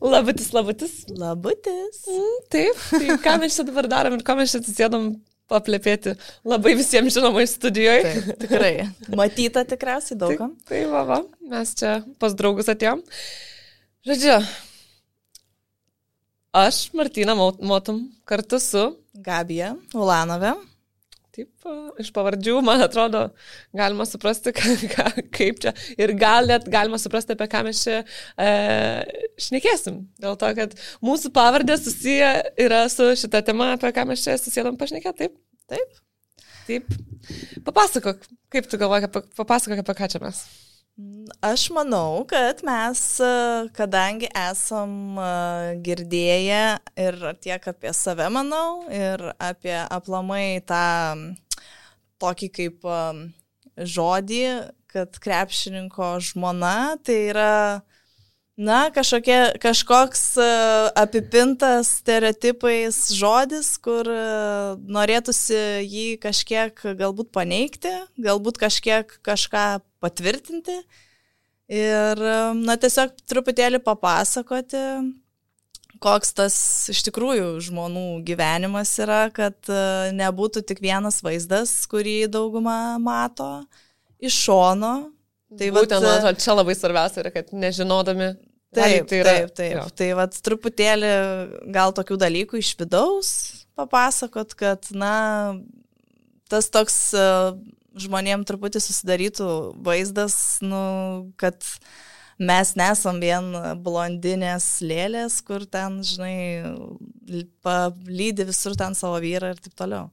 Labutis, labutis. Labutis. Taip, tai ką mes čia dabar darom ir ko mes čia atsisėdom paplepėti labai visiems žinomai studijoje. Taip, tikrai. Matyta tikriausiai daugam. Tai va, mes čia pas draugus atėjom. Žodžiu, aš, Martina Motum, kartu su Gabija Ulanove. Taip, iš pavardžių, man atrodo, galima suprasti, kaip čia. Ir gal net galima suprasti, apie ką mes čia šnekėsim. Dėl to, kad mūsų pavardės susiję yra su šita tema, apie ką mes čia susėdam pašnekėti. Taip? Taip. Papasakok, kaip tu galvoji, papasakok, apie ką čia mes. Aš manau, kad mes, kadangi esam girdėję ir tiek apie save, manau, ir apie aplamai tą tokį kaip žodį, kad krepšininko žmona, tai yra, kažkoks apipintas stereotipais žodis, kur norėtųsi jį kažkiek galbūt paneigti, galbūt kažką patvirtinti ir, tiesiog truputėlį papasakoti, koks tas iš tikrųjų žmonų gyvenimas yra, kad nebūtų tik vienas vaizdas, kurį dauguma mato iš šono. Tai būtent, man atrodo, čia labai svarbiausia yra, kad nežinodami. Taip. Jo. Tai truputėlį gal tokių dalykų iš vidaus papasakot, kad, tas toks žmonėm truputį susidarytų vaizdas, kad mes nesam vien blondinės lėlės, kur ten, palydi visur ten savo vyrą ir taip toliau.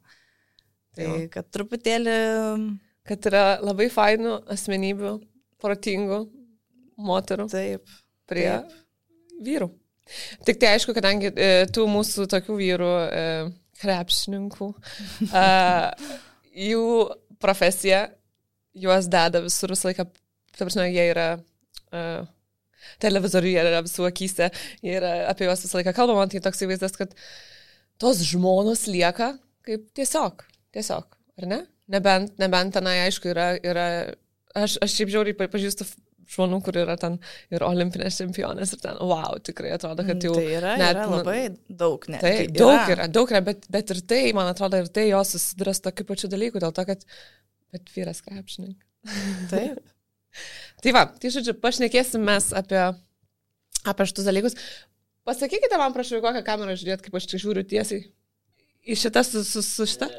Tai kad truputėlį... Kad yra labai fainų asmenybių, protingų moterų prie vyrų. Tik tai aišku, kadangi tų mūsų tokių vyrų krepšininkų, jų profesija, juos deda visur visą laiką, ta prasme, jie yra televizoriuje, yra visų akyse, jie yra apie juos visą laiką kalbama, tai toks įvaizdas, kad tos žmonos lieka kaip tiesiog, ar ne? Nebent tenai, aišku, yra aš šiaip žiauriai pažįstu žmonių, kur yra ten ir olimpinės čempionės ir ten, tikrai atrodo, kad jau... Tai yra labai daug, ne? Tai daug yra, bet ir tai, man atrodo, ir tai jos susiduria su tokiu pačiu dalyku, dėl to, kad bet vyras krepšininkas. Taip. Tai žodžiu, pašnekėsim mes apie šitus dalykus. Pasakykite man, prašau, kokią kamerą žiūrėt, kaip aš čia žiūriu tiesiai. Į šitą su šitą?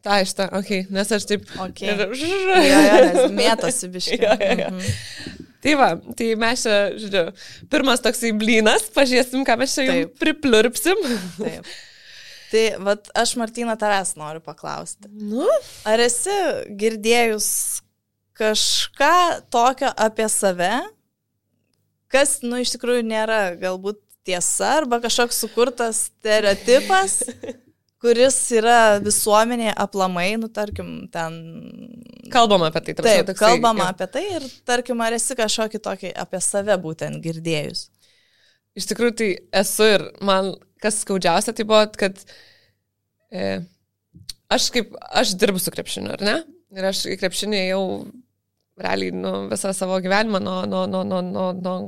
Ta, šitą, okei, nes aš taip... Okay. Nes mėtosi biškai. Tai mes čia, žiūrėjau, pirmas toksai blynas, pažiūrėsim, ką mes čia jums pripliurpsim. Taip. Tai, aš, Martina, tavęs noriu paklausti. Ar esi girdėjus kažką tokio apie save, kas, iš tikrųjų nėra galbūt tiesa, arba kažkoks sukurtas stereotipas, kuris yra visuomenėje aplamai, tarkim, ten... Kalbama apie tai. Taip, kalbama apie tai ir, tarkim, ar esi kažkokį tokį apie save būtent girdėjus? Iš tikrųjų, tai esu ir man kas skaudžiausia, tai buvo, kad aš dirbu su krepšiniu, ar ne? Ir aš į krepšinį jau realiai visą savo gyvenimą nuo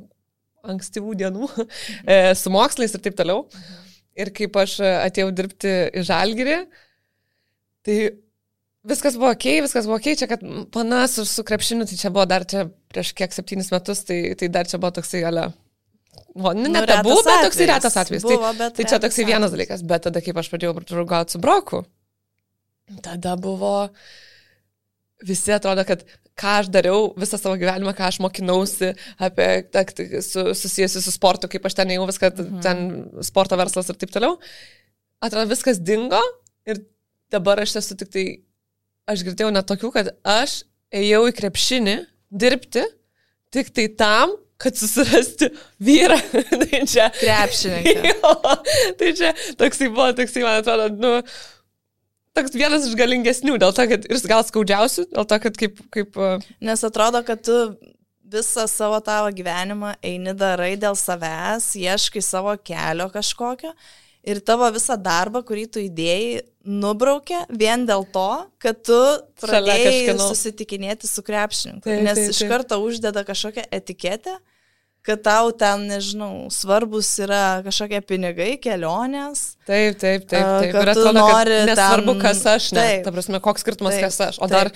ankstyvų dienų su mokslais ir taip toliau. Ir kaip aš atėjau dirbti į Žalgirį, tai viskas buvo okei, čia kad panas su krepšiniu, tai čia buvo dar prieš kiek 7 metus, tai dar čia buvo toksai ne tabu, bet toksai retas atvejis. Tai čia toksai vienas dalykas, bet tada kaip aš pradėjau draugauti su Broku, tada buvo, visi atrodo, kad ką aš dariau visą savo gyvenimą, ką aš mokinausi apie susijusi su sportu, kaip aš ten jau viską, ten sporto verslas ir taip toliau. Atrodo, viskas dingo ir dabar aš esu tik tai, aš girdėjau net tokių, kad aš ėjau į krepšinį dirbti tik tai tam, kad susirasti vyrą. Tai čia krepšininką. Tai čia toksai buvo, man atrodo, toks vienas iš galingesnių, dėl to, kad ir gal skaudžiausių, dėl to, kad kaip... Nes atrodo, kad tu visą savo tavo gyvenimą eini darai dėl savęs, ieškai savo kelio kažkokio ir tavo visą darbą, kurį tu įdėjai, nubraukė vien dėl to, kad tu pradėjai susitikinėti su krepšininku. Nes iš karto uždeda kažkokią etiketę, kad tau ten, nežinau, svarbus yra kažkokie pinigai, kelionės. Taip. Ir Kad tu atrodo, nori kad nesvarbu, kas aš, ne. Taip. Ta prasme, koks skirtumas, Taip. kas aš. O dar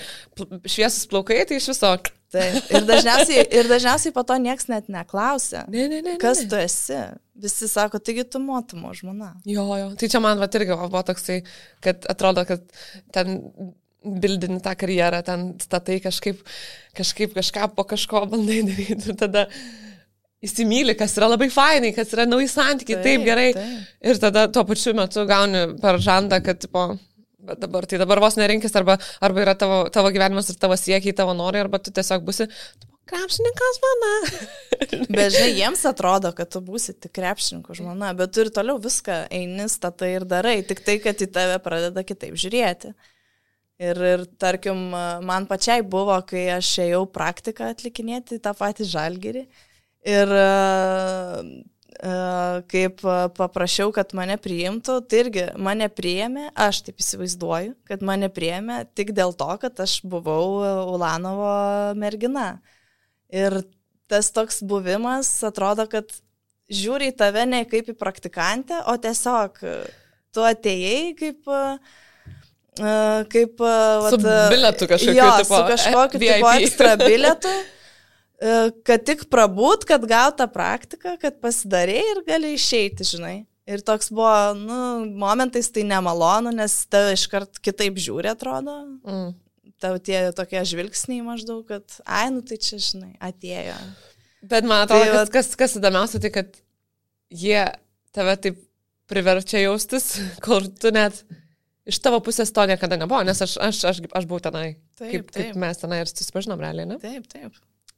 šviesus plaukai, tai iš viso. Taip. Ir dažniausiai po to nieks net neklausia. Ne. Kas tu esi? Visi sako, taigi tu motumo žmona. Jo. Tai čia man irgi buvo toksai, kad atrodo, kad ten bildini tą karjerą, ten statai kažkaip kažką po kažko bandai daryti ir tada įsimyli, kas yra labai fainai, kas yra nauji santykiai, taip gerai. Taip. Ir tada tuo pačiu metu gauni per žandą, kad tipo, bet dabar vos nerinkis, arba yra tavo gyvenimas ir tavo siekiai, tavo norai, arba tu tiesiog būsi krepšininkas žmona. Bet žinai, jiems atrodo, kad tu būsi tik krepšininkų žmona, bet tu ir toliau viską eini, statai ir darai, tik tai, kad į tave pradeda kitaip žiūrėti. Ir tarkim, man pačiai buvo, kai aš ėjau praktiką atlikinėti tą patį Žalgirį. Ir kaip paprašiau, kad mane priimtų, tai irgi mane priėmė, aš taip įsivaizduoju, kad mane priėmė tik dėl to, kad aš buvau Ulanovo mergina. Ir tas toks buvimas atrodo, kad žiūri į tave ne kaip į praktikantę, o tiesiog tu atėjai kaip su bilietu kažkokiu tipo. Su kažkokiu tipo ekstra bilietu, kad tik prabūt, kad gauta praktika, kad pasidarėjai ir gali išeiti, žinai. Ir toks buvo, momentais tai nemalonu, nes tave iškart kitaip žiūri, atrodo. Tau tie tokie žvilgsniai maždaug, kad, tai čia, žinai, atėjo. Bet man atrodo, kas įdomiausia, tai kad jie tave taip priverčia jaustis, kur tu net iš tavo pusės to niekada nebuvo, nes aš buvau tenai, kaip mes tenai ir susipažinom realiai, ne? Taip.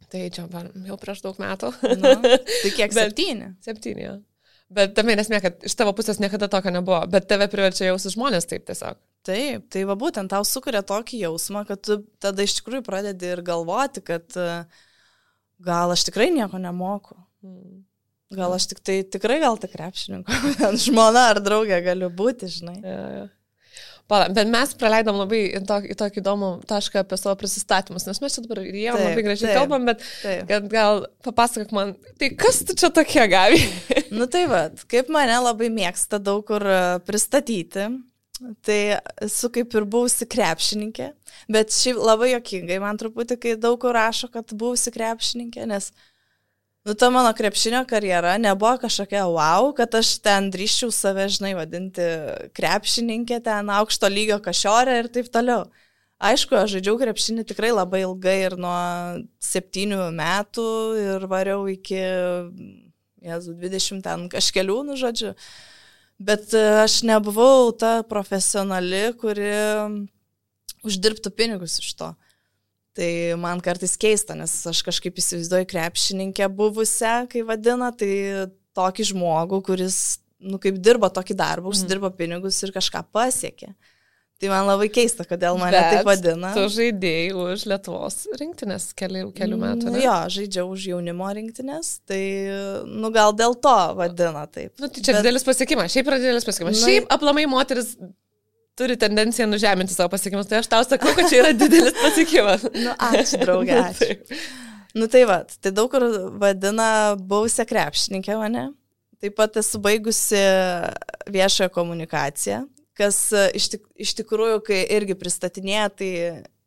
Tai čia jau prieš daug metų. Tai kiek? 7? 7, jo. Bet tame nesmė, kad iš tavo pusės niekada tokio nebuvo, bet tave priverčia jausis žmonės taip tiesiog. Taip, tai va būtent tau sukuria tokį jausmą, kad tu tada iš tikrųjų pradedi ir galvoti, kad gal aš tikrai nieko nemoku. Gal aš tikrai gal tik krepšininko, žmona ar draugė galiu būti, žinai. Ja. Bet mes praleidom labai į tokį įdomų tašką apie savo prisistatymus, nes mes čia dabar ir jie labai gražiai kalbam, bet kad gal papasakok man, tai kas tu čia tokie gavi? Tai kaip mane labai mėgsta daug kur pristatyti, tai esu kaip ir buvusi krepšininkė, bet šiaip labai juokingai man truputį, kai daug kur rašo, kad buvusi krepšininkė, nes ta mano krepšinio karjera nebuvo kažkokia wow, kad aš ten drįščiau save, žinai, vadinti krepšininkė, ten aukšto lygio kašiorė ir taip toliau. Aišku, aš žaidžiau krepšinį tikrai labai ilgai ir nuo 7 metų ir variau iki 20 ten kažkelių, žodžiu. Bet aš nebuvau ta profesionali, kuri uždirbtų pinigus iš to. Tai man kartais keista, nes aš kažkaip įsivaizduoju krepšininkę buvusią, kai vadina, tai tokį žmogų, kuris, kaip dirba tokį darbą, užsidirba pinigus ir kažką pasiekė. Tai man labai keista, kodėl mane taip vadina. Tu žaidėjai už Lietuvos rinktinės kelių metų, ne? Jo, žaidžiau už jaunimo rinktinės, tai, gal dėl to vadina taip. Tai čia didelis pasiekimas, šiaip yra didelis pasiekimas. Šiaip aplamai moteris turi tendenciją nužeminti savo pasiekimus, tai aš tau sakau, kad čia yra didelis pasiekimas. Ačiū, draugė, ačiū. Tai daug kur vadina buvusią krepšininkę mane. Taip pat esu baigusi viešoją komunikaciją, kas iš tikrųjų, kai irgi pristatinėja, tai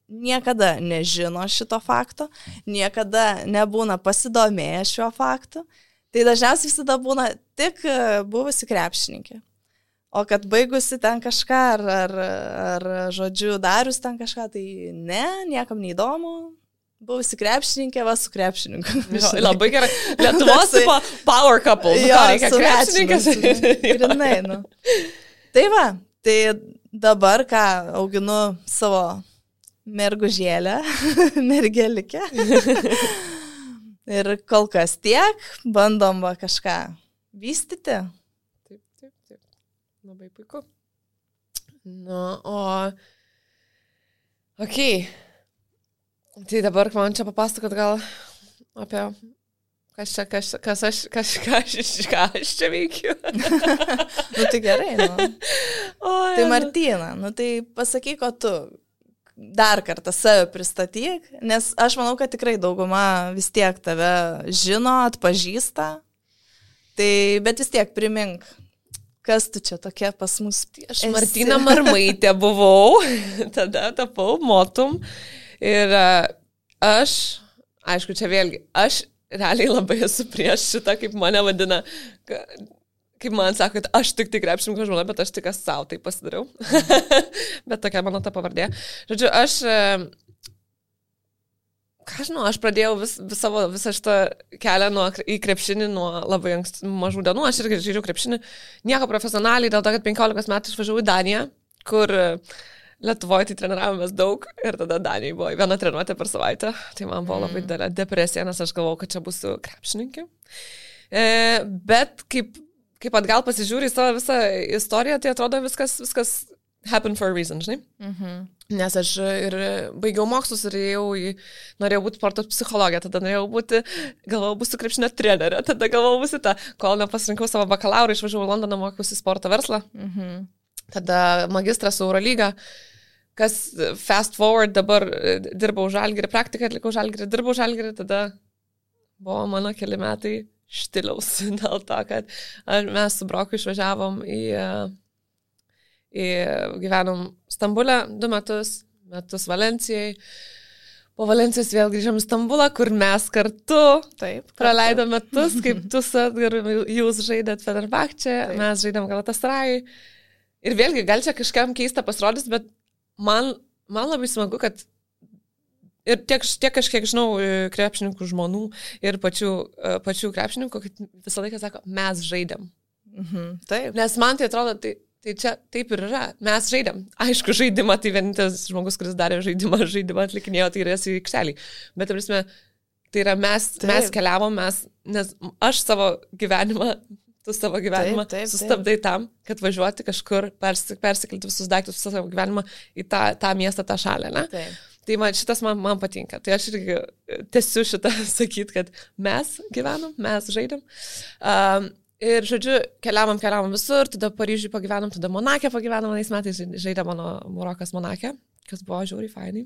niekada nežino šito fakto, niekada nebūna pasidomėję šiuo faktu. Tai dažniausiai visada būna tik buvusi krepšininkė. O kad baigusi ten kažką, ar žodžiu, darius ten kažką, tai niekam neįdomu. Buvusi krepšininkė, su krepšininku. Labai gerai. Lietuvos power couple. Reikia krepšininkas. Grinai, Tai dabar, ką auginu savo mergužėlę, mergelikę. Ir kol kas tiek, bandom kažką vystyti. Labai puiku. Okei. Tai dabar man čia papasakot gal apie kas aš čia veikiu. Tai gerai, Tai Martina, tai pasakyk, o tu, dar kartą save pristatyk, nes aš manau, kad tikrai dauguma vis tiek tave žino, atpažįsta, tai bet vis tiek primink, kas tu čia tokia pas mus. Aš Martina Marmaitė buvau, tada tapau motum ir aš, aišku, čia vėlgi, aš realiai labai esu prieš šitą, kaip mane vadina, kaip man sako, kad aš tik krepšininko žmona, bet aš tik savo tai pasidariau. Bet tokia mano ta pavardė. Žodžiu, aš pradėjau visą šitą kelią į krepšinį nuo labai mažų dienų. Aš irgi žaidžiau krepšinį nieko profesionaliai, dėl to, kad 15 metų išvažiavau į Daniją, kur Lietuvoje tai treniravomės daug ir tada Danijai buvo viena treniruotė per savaitę. Tai man buvo labai didelė depresija, nes aš galvojau, kad čia būsiu krepšininkė. Bet kaip atgal pasižiūri į savo visą istoriją, tai atrodo viskas happen for a reason, žinai. Nes aš ir baigiau mokslus ir norėjau būti sporto psichologė, tada galvojau būsiu krepšinio trenerė, tada galvojau būsiu kol nepasirinkau savo bakalaurą, išvažiavau į Londoną, mokiausi sporto verslą. Tada magistras Eurolyga, kas fast forward, dabar dirbau Žalgirį, praktiką atlikau Žalgirį, dirbau Žalgirį, tada buvo mano keli metai štiliaus dėl to, kad mes su Broku išvažiavom gyvenom Stambulę 2 metus Valencijai. Po Valencijos vėl grįžom į Stambulą, kur mes kartu praleidom metus, kaip tu jūs žaidėt Fenerbahče, mes žaidėm Galatasarayui. Ir vėlgi, gal čia kažkam keista pasirodys, bet man labai smagu, kad ir tiek aš kiek žinau krepšininkų žmonų ir pačių krepšininkų, kad visą laiką sako, mes žaidėm. Taip. Nes man tai atrodo, tai čia taip ir yra. Mes žaidėm. Aišku, žaidimą, tai vienintelis žmogus, kuris darė žaidimą atlikinėjo, tai yra į aikštelį. Bet, tai yra mes keliavom, nes aš savo gyvenimą sustabdai tam, kad važiuoti kažkur, persikelti visus daiktus, visą savo gyvenimą į tą miestą, tą šalį, ne? Taip. Tai šitas man patinka. Tai aš irgi tęsiu šitą sakyti, kad mes gyvenom, mes žaidėm. Ir, žodžiu, keliavom visur, tada Paryžiui pagyvenom, tada Monake pagyvenom, vienais metais žaidė mano Marokas Monake, kas buvo žiauriai fainai.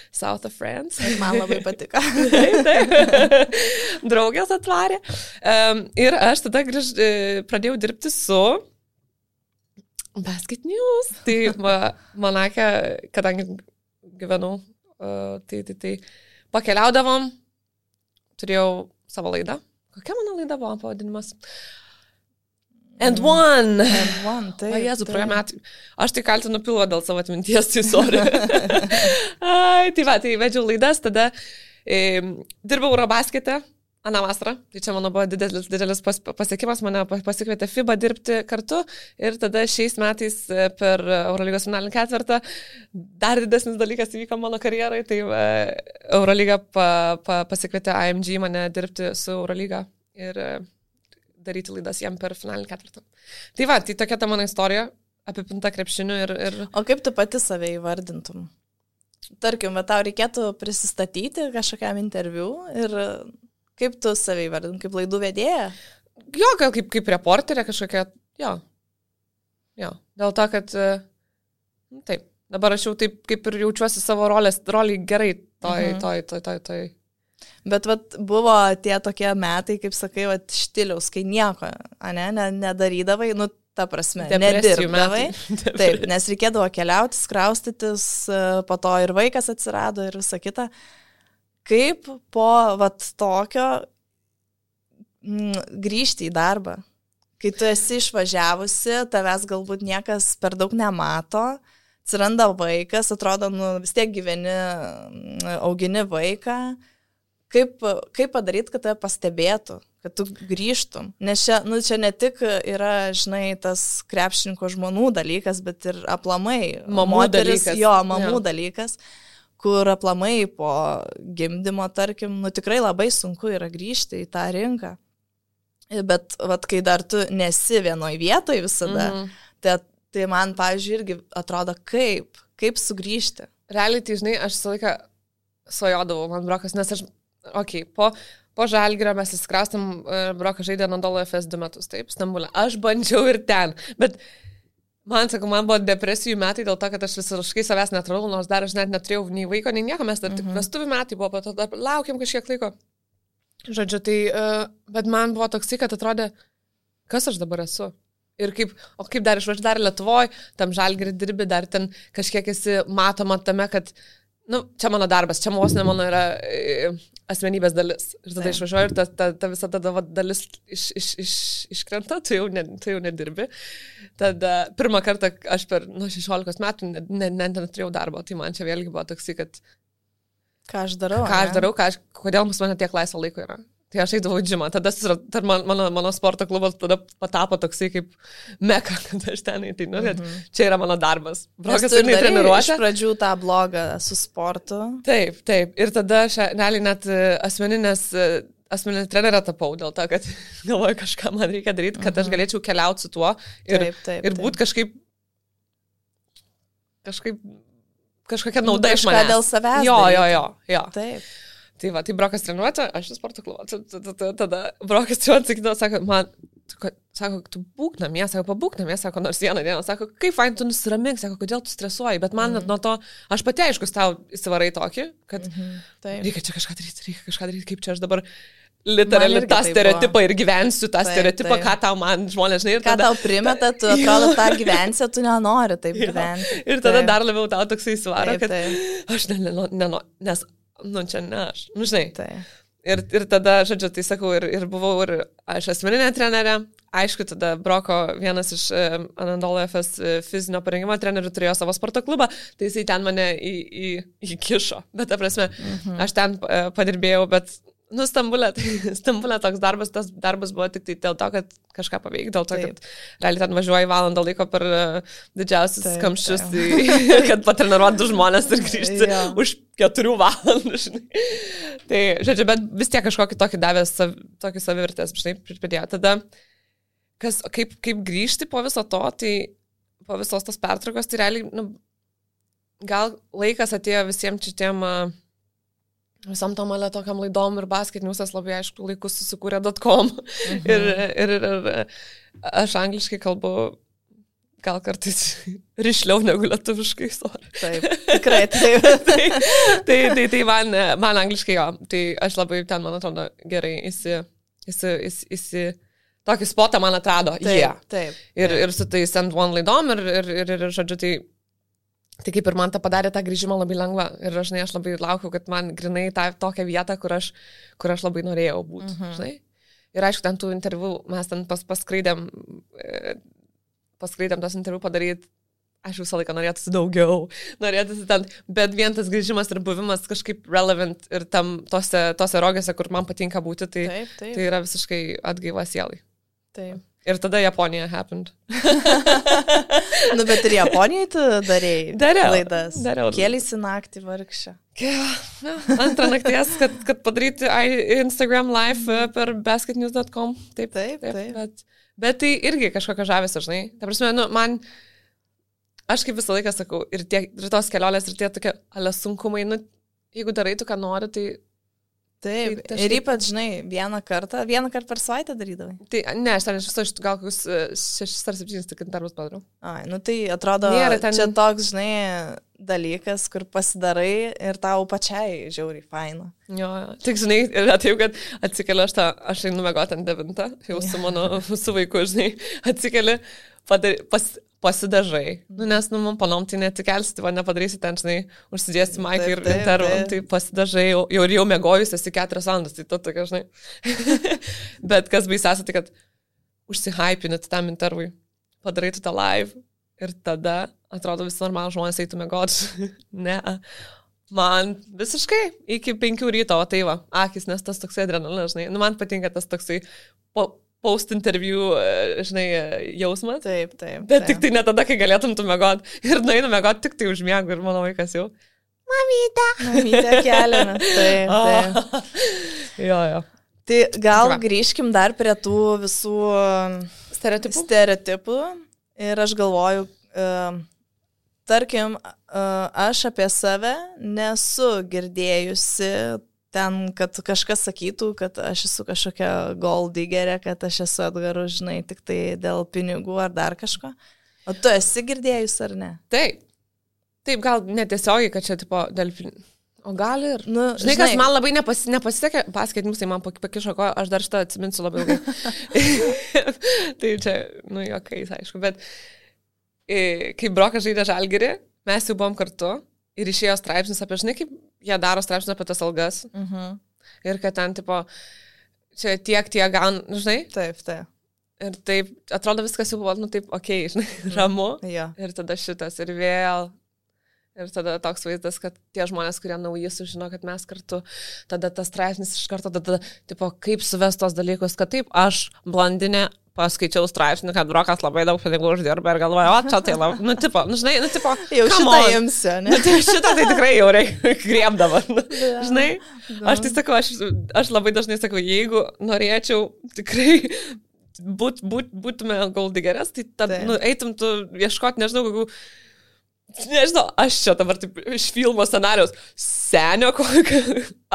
South of France. Man labai patiko. Taip. Draugės atvarė. Ir aš tada pradėjau dirbti su Basket News. Tai Monake, kadangi gyvenau, tai pakeliaudavom, turėjau savo laidą. Kokia mano laida buvo pavadinimas? And One, taip. Jėzu, praėjo metai. Aš tai kaltinu pilvą dėl savo atminties, tai sorry. Tai vedžiau laidas, tada dirbau Eurobaskete, aną vasarą. Tai čia mano buvo didelis pasiekimas, mane pasikvietė FIBA dirbti kartu ir tada šiais metais per Eurolygos finalinį ketvirtą dar didesnis dalykas įvyko mano karjerai, tai Eurolyga pasikvietė AMG mane dirbti su Eurolyga ir daryti laidas jam per finalinį ketvirtą. Tai tokia ta mano istorija, apipinta krepšiniu ir... O kaip tu pati save įvardintum? Tarkim, tau reikėtų prisistatyti kažkokiam interviu ir kaip tu save įvardintum, kaip laidų vedėja? Jo, gal kaip reporterė kažkokia, jo. Dėl to, kad taip, dabar aš jau taip kaip ir jaučiuosi savo rolį gerai toj. Bet buvo tie tokie metai, kaip sakai, štiliaus, kai nieko, nedarydavai, ta prasme, nedirbdavai. Taip, nes reikėdavo keliauti, kraustytis, po to ir vaikas atsirado ir visa kita. Kaip po tokio grįžti į darbą, kai tu esi išvažiavusi, tavęs galbūt niekas per daug nemato, atsiranda vaikas, atrodo, vis tiek gyveni, augini vaiką. Kaip padaryti, kad tave pastebėtų, kad tu grįžtum? Nes čia ne tik yra, žinai, tas krepšininko žmonų dalykas, bet ir aplamai mamų dalykas, kur aplamai po gimdymo, tarkim, tikrai labai sunku yra grįžti į tą rinką. Bet kai dar tu nesi vienoj vietoj visada, tai man, pavyzdžiui, irgi atrodo, kaip sugrįžti. Realiai, tai žinai, aš visą laiką svajodavau, man Brokas, nes aš po Žalgirio mes įsikraustėm, Brokas žaidė Anadolu FS 2 metus, taip, Stambulė. Aš bandžiau ir ten, bet Man buvo depresijų metai dėl to, kad aš visiškai savęs netradau, nors dar aš net neturėjau nei vaiko, nei nieko, mes dar tik vestuvių metai buvo, po to dar laukiam kažkiek laiko. Žodžiu, tai, bet man buvo toksai, kad atrodė, kas aš dabar esu. Ir kaip dar išvažiuoju dar Lietuvoje, tam Žalgirį dirbi, dar ten kažkiek esi matoma tame, kad čia mano darbas, čia vos ne mano yra asmenybės dalis. Ir tada išvažiuoju ir ta visa tada dalis iškrenta, tu jau nedirbi. Tada pirmą kartą aš per 16 metų neturėjau darbo, tai man čia vėlgi buvo toksai, kad ką aš darau, kodėl pas mane tiek laisvo laiko yra. Tai aš eidavau į džimą, tada mano sporto klubas tada patapo toksai kaip meka, kad aš ten einu, čia yra mano darbas. Brokas ir treniruočia. Iš pradžių tą blogą su sportu. Taip. Ir tada aš realiai net asmeninė trenerė tapau dėl to, kad galvoju, kažką man reikia daryti, kad aš galėčiau keliauti su tuo ir būti kažkokia nauda iš manęs. Kažką dėl savęs. Jo. Taip. Tai va, tai Brokas treniruotė, aš į sporto klubą. Tada Brokas treniruotė sakydavo, sako, tu būk namie, pabūk namie, nors vieną dieną, kaip fain, tu nusiramink, kodėl tu stresuoji, bet man nuo to, aš pati aiškus tau įsivarai tokį, kad reikia čia kažką daryti, kaip čia aš dabar literaliai tą stereotipą ir gyvensiu tą stereotipą, ką tau man žmonės, žinai. Ką tau primeta, tu atrodo tą gyvensi, tu nenori taip gyventi. Ir tada dar labiau tau toksai įsivaro, kad aš nenoriu, nes čia ne aš, žinai. Tai. Ir tada, žodžiu, tai sakau, ir buvau ir aš asmeninė trenerė, aišku, tada Broko vienas iš Anadolu FS fizinio parengimo trenerių turėjo savo sporto klubą, tai jisai ten mane įkišo, bet ta prasme, aš ten padirbėjau, bet Stambulė toks darbas, tas darbas buvo tik tai dėl to, kad kažką paveikti, dėl to, kad realiai ten važiuoji valandą laiko per didžiausius kamščius, kad patreniruoti 2 žmonės ir grįžti už 4 valandų, žinai. Tai, žodžiu, bet vis tiek kažkokį tokį davęs, tokį savivertės, žinai, pridėjo. Tada, kaip grįžti po viso to, tai po visos tos pertraukos, tai realiai, gal laikas atėjo visiems šitiem visam tom tokiam laidom ir basket newsas labai aišku laikus susikūrė .com ir aš angliškai kalbu gal kartais rišliau negu lietuviškai, sorry. Taip, tikrai taip. tai man angliškai jo, tai aš labai ten, man atrodo, gerai tokį spotą man atrado. Taip. Ir su tais Send One laidom ir žodžiu, tai kaip ir man tą padarė tą grįžimą labai lengva. Ir aš labai laukiau, kad man grinai tokią vietą, kur aš labai norėjau būti. Žinai? Ir aišku, ten tų interviu mes ten paskraidėm tos interviu padaryti. Aš visą laiką norėtųsi daugiau. Bet vien tas grįžimas ir buvimas kažkaip relevant ir tose rogėse, kur man patinka būti, tai yra visiškai atgaiva sielai. Taip. Ir tada Japonija happened. Bet ir Japonijoje tu darėjai laidas. Dariau. Kėlėsi naktį vargšę. Antrą nakties, kad padaryti Instagram live per basketnews.com. Taip. Bet tai irgi kažkokia žavėsi, žinai. Ta prasme, aš kaip visą laiką sakau, ir tos kelionės, ir tie tokie sunkumai, jeigu darai tu, ką nori, tai Taip, ir ypač, žinai, vieną kartą per savaitę darydavai. Tai ne, aš ten iš viso gal kokius 6 ar 7 tik darbus padariau. Tai atrodo, čia toks, žinai, dalykas, kur pasidarai ir tau pačiai žiauriai faina. Jo, tik, žinai, yra taip, kad atsikeliu aš einu miegoti ant 9, jau su vaiku, žinai, atsikeliu, pasidažai. Nes, man panom, tai netikelsi, tai nepadarysi ten, žinai, užsidėsi maiką ir intervą, tai pasidažai, jau mėgojus esi 4 valandas, tai tu tokia, žinai. Bet kas baisiausia, tai kad užsihypinit tam intervui, padarai tu tą live ir tada, atrodo, visi normalų žmonės eitų mėgoti. Ne, man visiškai iki 5 ryto, o tai va, akis, nes tas toksai adrenalinas, žinai, man patinka tas toksai post-interview, žinai, jausmas. Taip. Bet tik tai ne tada, kai galėtum tu mėgoti. Ir nueinu mėgoti tik tai užmiegu ir mano vaikas jau. Mamytė keliamės. Taip. Jo. Tai gal grįžkim dar prie tų visų stereotipų. Ir aš galvoju, tarkim, aš apie save nesu girdėjusi ten, kad kažkas sakytų, kad aš esu kažkokia gold diggerė, kad aš esu Edgaru, žinai, tik tai dėl pinigų ar dar kažko. O tu esi girdėjus ar ne? Taip. Taip, gal netiesiogiai, kad čia, tipo, o gal ir... Nu, žinai, kas man labai nepasisekė, paskaitymus, tai man pakišo ko, aš dar šitą atsiminsiu labai ilgai. Tai čia, juokais, aišku, bet kai Brokas žaidė Žalgirį, mes jau buvom kartu ir išėjo straipsnis apie, žinai, kaip jie daro straipsnius apie tas algas. Ir kad ten, tipo, čia tiek gaun, žinai? Taip. Ir taip, atrodo viskas jau buvo, taip, okei, žinai, ramu. Ja. Ir tada šitas ir vėl. Ir tada toks vaizdas, kad tie žmonės, kurie nauji sužino, kad mes kartu, tada tas straipsnis iš karto, tada, tipo, kaip suvest tos dalykus, kad taip, aš blondinė, paskaičiau straipsnį, kad Brokas labai daug pinigų uždirba ir galvoju, o čia tai labai, tipo, žinai, tipo, jau šitą imsiu, ne? Šitą tai tikrai jau reikia griebdama, žinai, aš tai sakau, aš labai dažnai sakau, jeigu norėčiau tikrai būtume goldigeres, tai tada, eitum tu ieškoti, nežinau, aš čia dabar taip iš filmo scenarijaus senio kokio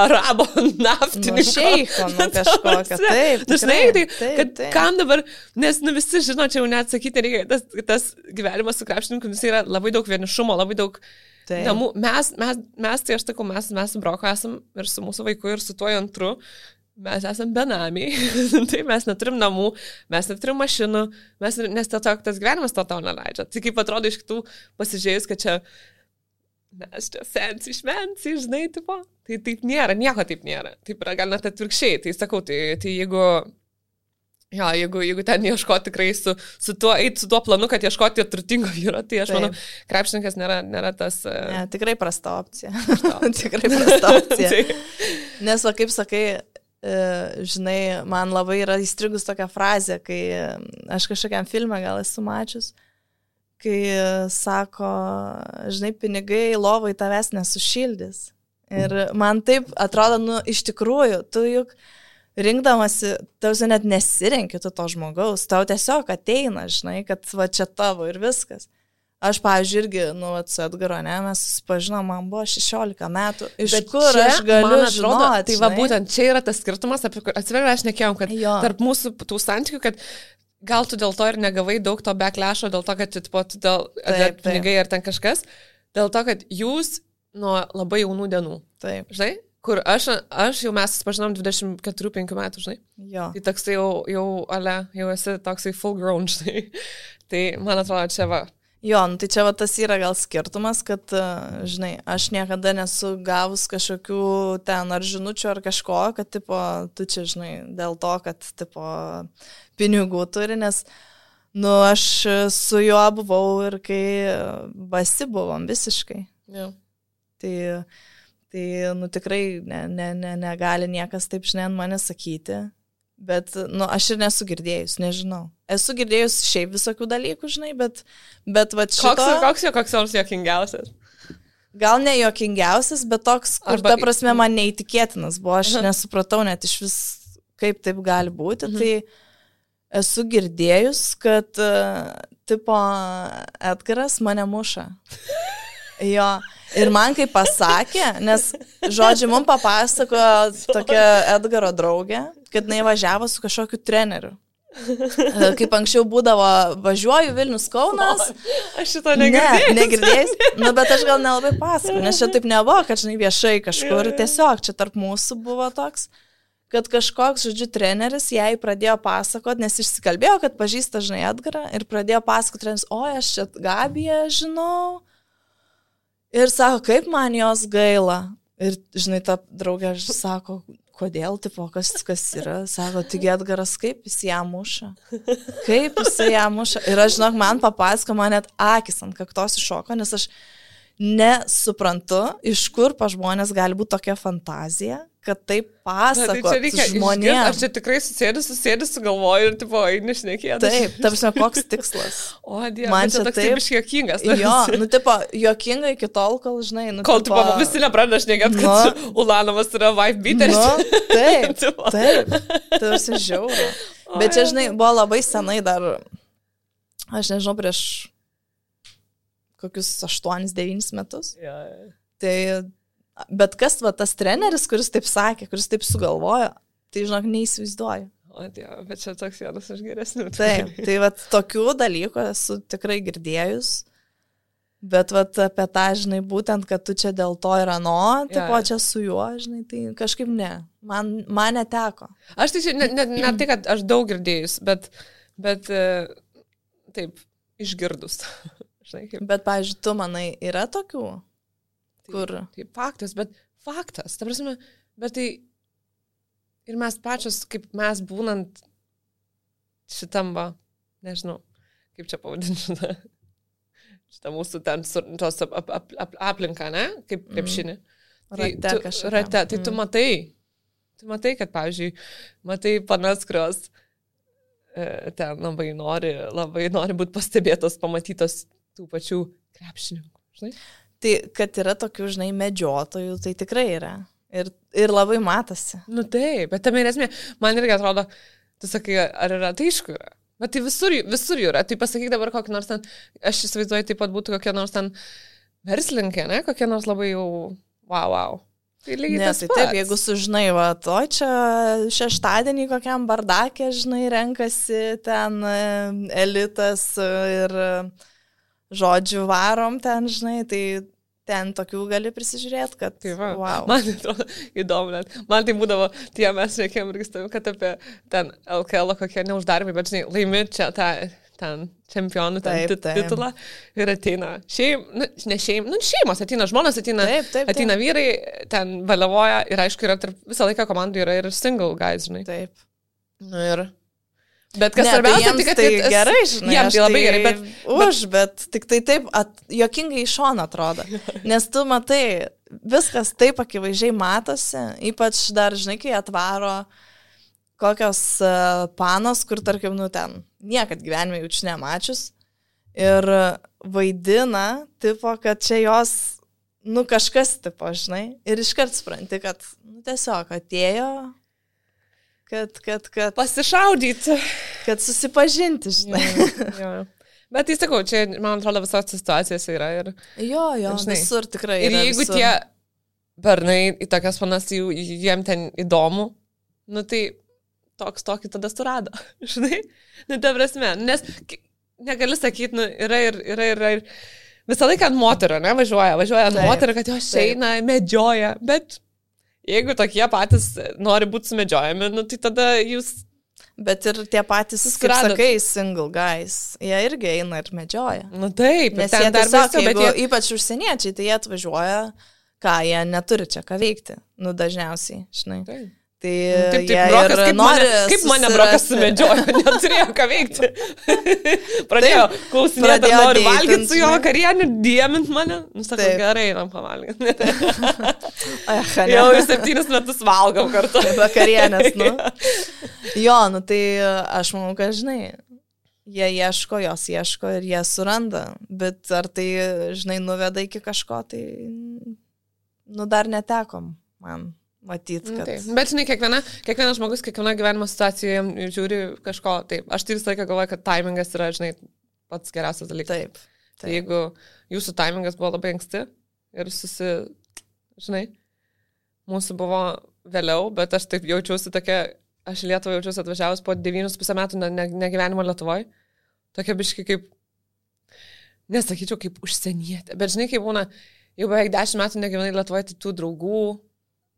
arabo naftininko. Šeiko, kažkokio. Taip, žinai, kad kam dabar, nes visi žino, čia jau neatsakyti reikia, tas gyvenimas su krepšininku, jis yra labai daug vienišumo, labai daug namų. Mes, tai aš sakau, mes su Broku esam ir su mūsų vaiku, ir su tuo antru. Mes esame benamiai, tai mes neturim namų, mes neturim mašinų, nes tiesiog tas gyvenimas to tau neleidžia. Tai kaip atrodo iš kitų pasižiūrėjus, kad čia mes čia fancy, žinai, tipo, tai taip nėra, nieko taip nėra. Taip yra gal net atvirkščiai, tai sakau, tai jeigu ten ieškoti tikrai su tuo planu, kad ieškoti turtingo vyro, tai aš manau, krepšininkas nėra tas... Ne, tikrai prasta opcija. Tikrai prasta opcija. Nes, va, kaip sakai, žinai, man labai yra įstrigus tokia frazė, kai aš kažkokiam filmą gal esu mačius, kai sako, žinai, pinigai lovai tavęs nesušildys. Ir man taip atrodo, iš tikrųjų, tu juk rinkdamasi, tau net nesirenki tu to žmogaus, tau tiesiog ateina, žinai, kad va čia tavo ir viskas. Aš, pavyzdžiui, irgi, su Edgaru, ne, mes susipažinom, man buvo 16 metų. Iš bet kur čia, aš galiu žinoti? Tai va, būtent čia yra tas skirtumas, atsiveria, aš nekėjom, kad tarp mūsų tų santykių, kad gal tu dėl to ir negavai daug to backlasho, dėl to, kad tu dėl pinigai ar ten kažkas, dėl to, kad jūs nuo labai jaunų dienų. Taip. Žinai? Kur aš jau mes susipažinom 24-5 metų, žinai? Jo. Tai toksai jau esi toksai full grown, žinai? Tai man atrodo, čia va. Jo, tai čia va tas yra gal skirtumas, kad, žinai, aš niekada nesu gavus kažkokių ten ar žinučių ar kažko, kad, tipo, tu čia, žinai, dėl to, kad, tipo, pinigų turi, nes, aš su juo buvau ir kai basi buvom visiškai. Jo. Tai, tikrai negali niekas taip, žinai, ant mane sakyti. Bet, aš ir nesu girdėjus, nežinau. Esu girdėjus šiaip visokių dalykų, žinai, bet va šito... Koks nors jokingiausias? Gal ne jokingiausias, bet toks, kur ta prasme man neįtikėtinas buvo. Aš nesupratau net iš vis, kaip taip gali būti. Tai esu girdėjus, kad, tipo, Edgaras mane muša. Jo. Ir man kaip pasakė, nes, žodžiu, mums papasakojo tokia Edgaro draugė, kad jinai važiavo su kažkokiu treneriu. Kaip anksčiau būdavo, važiuoju Vilnius Kaunas. Aš šito negirdėjau. Ne, negirdėjus. Bet aš gal nelabai pasakoju, nes čia taip nebuvo, kad, žinai, viešai kažkur. Tiesiog čia tarp mūsų buvo toks, kad kažkoks, žodžiu, treneris jai pradėjo pasakoti, nes išsikalbėjo, kad pažįsta, žinai, Edgarą ir pradėjo pasakoti treneris, aš čia Gabiją žinau. Ir sako, kaip man jos gaila. Ir, žinai, ta draugė sako, kodėl, tipo, kas yra. Sako, tik Edgaras, kaip jis ją muša. Kaip jis ją muša. Ir aš, žinok, man papasako, man net akis ant kaktos iššoko, nes aš nesuprantu, iš kur pa žmonės gali būti tokia fantazija, kad taip pasako žmonėms. Aš čia tikrai susėdus, sugalvoju ir, tipo, eini šnekėti. Taip, tarsi koks tikslas. O, Dieve, man čia toks taip juokingas. Jo, tipo, juokinga iki tol, kol, žinai, kol, tipo, visi nepradeda šnekėti, kad Ulanovas yra wife beateris. Taip, tarsi žiauru. Bet čia, žinai, buvo labai senai dar, aš nežinau, prieš kokius 8-9 metus. Tai, bet kas, va, tas treneris, kuris taip sakė, kuris taip sugalvojo, tai, žinok, neįsivaizduoju. O, Dieve, bet čia toks vienas iš geresnių. Taip, tai vat tokių dalykų esu tikrai girdėjus. Bet vat apie tą, žinai, būtent, kad tu čia dėl to ir ano, tipo čia su juo, žinai, tai kažkaip ne. Man neteko. Aš tai ne tai, kad aš daug girdėjus, bet taip, išgirdus. Žinai, kaip. Bet, pavyzdžiui, tu manai, yra tokių, kur... Tai faktas, ta prasme, bet tai ir mes pačios, kaip mes būnant šitam, nežinau, kaip čia pavadinti šitą mūsų ten tos aplinką, ne? Kaip krepšinį. Rate, tai tu matai, kad, pavyzdžiui, matai panas, kurios ten labai nori būti pastebėtos, pamatytos tų pačių krepšininkų, žinai? Tai, kad yra tokių, žinai, medžiotojų, tai tikrai yra. Ir labai matosi. Nu taip, bet tame ir esmė, man irgi atrodo, tu sakai, ar yra, tai aišku yra. Bet tai visur jų yra. Tai pasakyk dabar kokį nors ten, aš įsivaizduoju, taip pat būtų kokie nors ten verslininkė, ne? Kokie nors labai jau wow. Tai lygiai tas pats. Taip, jeigu sužinai, va, to čia šeštadienį kokiam bardakė, žinai, renkasi ten elitas ir žodžių varom ten, žinai, tai ten tokių gali prisižiūrėti, kad... Tai va, wow. Man atrodo įdomu, net. Man tai būdavo, tie mes reikėjom irgi stavim, kad apie ten LKL kokie neuždarbį, bet žinai, laimi čia tą ten čempionų titulą ir ateina šeimos, ateina žmonas, ateina vyrai, ten valiavoja ir aišku, yra visą laiką komandų yra ir single guys, žinai. Taip. Nu ir... Bet kas svarbiausia, tai kad tai gerai, žinai, jiems tai labai gerai, bet tik tai taip juokingai iš šono atrodo. Nes tu matai, viskas taip akivaizdžiai matosi, ypač dar, žinai, kai atvaro kokios panos, kur, tarkim, nu ten, niekad gyvenime jaučiu nemačius. Ir vaidina, tipo, kad čia jos, nu kažkas, tipo, žinai, ir iškart supranti, kad, nu tiesiog atėjo... Kad pasišaudyti. Kad susipažinti, žinai. Jo. Bet tai sakau, čia, man atrodo, visos situacijos yra. Ir, jo, žinai, visur tikrai yra. Ir jeigu visur. Tie bernai į tokias panas, jiem ten įdomu, nu tai tokį tada surado, žinai. Nu, ta prasme, nes negali sakyti, nu, yra ir visą laiką ant moterio, ne, važiuoja ant moterio, kad jos eina, medžioja, bet... Jeigu tokie patys nori būti sumedžiojami, nu, tai tada jūs... Bet ir tie patys, kaip sakai, single guys, jie irgi eina ir medžioja. Nu taip, nes jie tiesiog, ypač užsieniečiai, tai jie atvažiuoja, ką jie neturi čia ką veikti, nu dažniausiai, žinai. Taip. Tai taip, brokas, kaip mane brokas sumedžiojo, neturėjo ką veikti. Pradėjo klausinėti, nori valgyti su jo vakarienį, diemint mane. Nu, sakau, gerai, einam pavalgyti. Jau 7 metus valgom kartu. Vakarienės, nu. Jo, nu tai aš manau, kad, žinai, jie jos ieško ir jie suranda. Bet ar tai, žinai, nuveda iki kažko, tai, nu, dar netekom man. Matyti, kad... Taip. Bet, žinai, kiekvienas žmogus, kiekviena gyvenimo situacijoje žiūri kažko. Taip, aš tai visą laiką galvoju, kad timingas yra, žinai, pats geriausias dalykas. Taip. Tai jeigu jūsų timingas buvo labai anksti ir žinai, mūsų buvo vėliau, bet aš taip jaučiausi tokia, aš į Lietuvą jaučiausi atvažiavus po 9,5 metų negyvenimo Lietuvoje. Tokia biški kaip, nesakyčiau, kaip užsienietė. Bet, žinai, kaip būna, jau beveik 10 metų negyvenai Lietuvoje, tai tų draugų